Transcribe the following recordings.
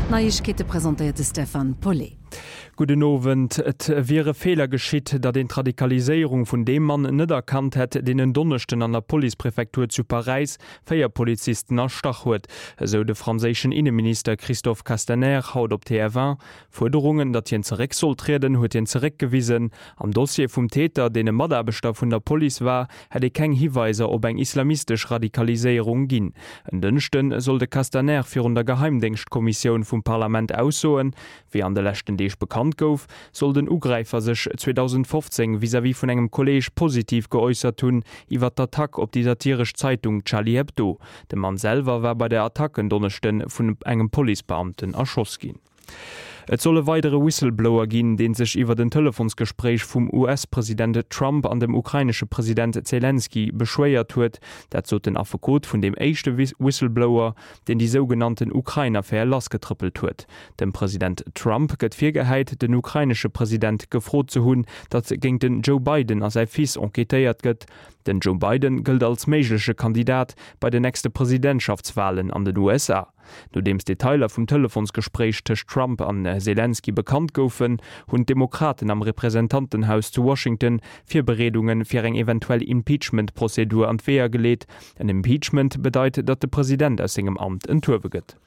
D'Neiegkeete presentéiert de Stefan Paulet. Gudden Owend. Et wier e Feeler geschitt, datt een d'Radikaliséierung vun deem Mann net erkannt hätt, deen en Donneschden an der Policepräfektur zu Paräis 4 Polizisten erstach huet, esou de franséischen Inneminister Christophe Castaner haut op TF1. Fuerderungen, datt hien zeréck soll trieden, huet hien zeréckgewisen. Am Dossier vum Täter, deen e Mataarbechter vun der Police war, hätt ee keng Hiweiser op eng islamistesch Radikaliséierung ginn. En Dënschde soll de Castaner virun der Geheimdéngschtkommissioun vum Parlament aussoen. Wéi an de leschten Deeg bekannt gouf, soll den Ugräifer sech 2015 vis-à-vis vun engem Kolleeg positiv geäussert hunn iwwer d'Attack op déi satiresch Zeitung Charlie Hebdo. De Mann selwer war bei der Attack en Donneschde vun engem Policebeamten erschoss ginn. Et soll e weidere Whistleblower ginn, dee sech iwwert en Telefonsgespréich vum US-President Trump an dem ukrainesche President Zelensky beschwéiert huet. Dat sot den Affekot vun deem éischte Whistleblower, deen déi sougenannten Ukrain-Affär lassgetrëppelt huet. Dem President Trump gëtt virgehäit, den ukrainesche President gefrot ze hunn, datt géint den Joe Biden a säi Fils enquêtéiert gëtt. Den Joe Biden gëllt als méigleche Kandidat bei den nächste Presidentschaftswalen an den USA. Nodeems d'Detailer vum Telefonsgespréich tëscht Trump an Selenskyj bekannt goufen, hunn d'Demokraten am Representantenhaus zu Washington Virbereedunge fir eng eventuell Impeachment-Prozedur an d'Weeër geleet. En Impeachment bedeit, datt de President aus sengem Amt enthuewe gëtt.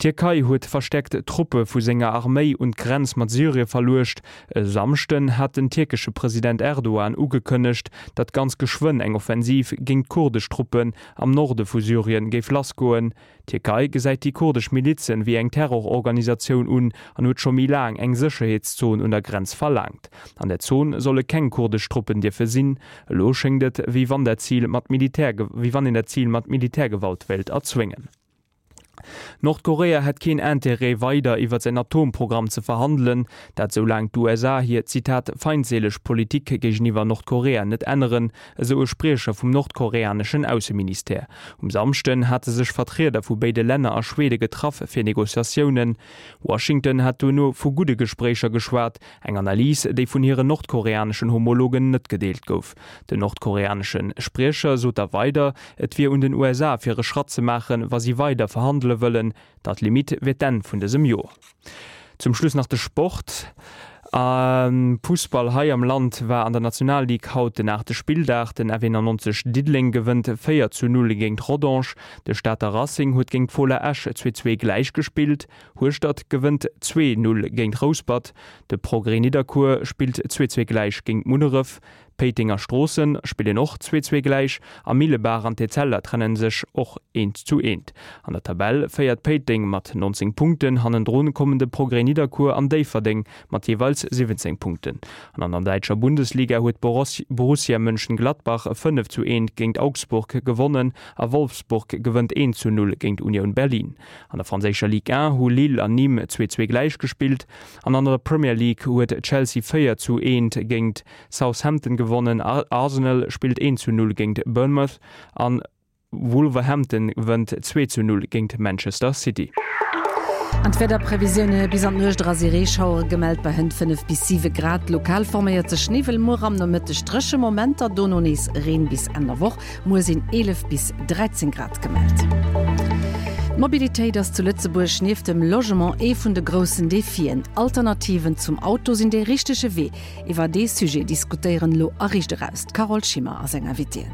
D'Tierkei huet verstäerkt Truppe vu senger Arméi un d'Grenz mat Syrie verluecht. E Samschden hat den tierkesche President Erdogan ugekënnegt, datt ganz geschwënn eng Offensiv géint kurdesch Truppen am Norde vu Syrien géif lassgoen. D'Tierkei gesäit déi kurdesch Milizen wéi eng Terrororganisatioun un an huet scho méi laang eng Sécherheetszon un der Grenz verlaangt. An der Zon solle keng kurdesch Truppen dierfe sinn. Elo schéngt et, wéi wann dat Zil mat Militär wéi wann een dat Zil mat Militärgewalt wéilt erzwéngen. Nordkorea hätt keen Interêt, weider iwwer säin Atomprogramm ze verhandelen, dat soulaang d'USA hir, Zitat, feindseeleg Politik géigeniwwer Nordkorea net änneren, esou e Spriecher vum nordkoreaneschen Ausseministère. Um Samschden hate sech Vertrieder vu béide Länner a Schwede getraff fir Negociatiounen. Washington hat duerno vu gudde Gespréicher geschwat, eng Analys, déi vun hiren nordkoreaneschen Homologen net gedeelt gouf. Den nordkoreanesche Spriecher sot da weider, et wier un den USA fir e Schratt ze maachen, wa si weider verhandele wëllen. Date limite wier d'Enn vun dësem Joer. Zum Schluss nach de Sport. Am Fussball hei am Land war an der Nationalligue haut den aachte Spilldag. Den F91 Diddeleng gewënnt 4 zu 0 géint Rodange. De Stater Racing huet géint d'Fola Esch 2 2 gläich gespillt. Hueschtert gewënnt 2 0 géint Rouspert. De Progrès Nidderkuer spillt 2 2 gläich géint Munneref. Péiteng a Stroossen spillen och 2, 2 gläich a Millebaach an d'Etzella trennen sech och 1 zu 1. An der Tabell féiert Péiteng mat 19 Punkten, hannendrun kommen de Progrès Nidderkuer an Déifferdeng mat jeeweils 17 Punkten. An an der däitscher Bundesliga huet Borussia Mönchengladbach 5 zu 1 géint Augsburg gewonnen a Wolfsburg gewënnt 1 zu 0 géint Union Berlin. An der franséischer Ligue 1 hu Lille an Nîmes 2, 2 gläich gespillt an an der Premier League huet Chelsea 4 zu 1 géint Southampton gewonnen, Arsenal spillt 1 zu 0 géint Bournemouth an Wolverhampton wënnt 2 zu 0 géint Manchester City. An d'Wiederprevisioune, Bis an d'Nuecht era si Reeschauere gemellt bei hënt 5 bis 7 Grad. Lokal forméiert sech Niwwel. Muer am Nomëtteg dréche Momenter, dono nees Reen bis Enn der Woch. Muer sinn 11 bis 13 Grad gemellt. D'Mobilitéit ass zu Lëtzebuerg nieft dem Logement ee vun de groussen Defien. Alternativen zum Auto sinn dee richtege Wee. Iwwer dee Sujet diskutéieren elo a Riicht Eraus d'Carole Schimmer a seng Invitéen.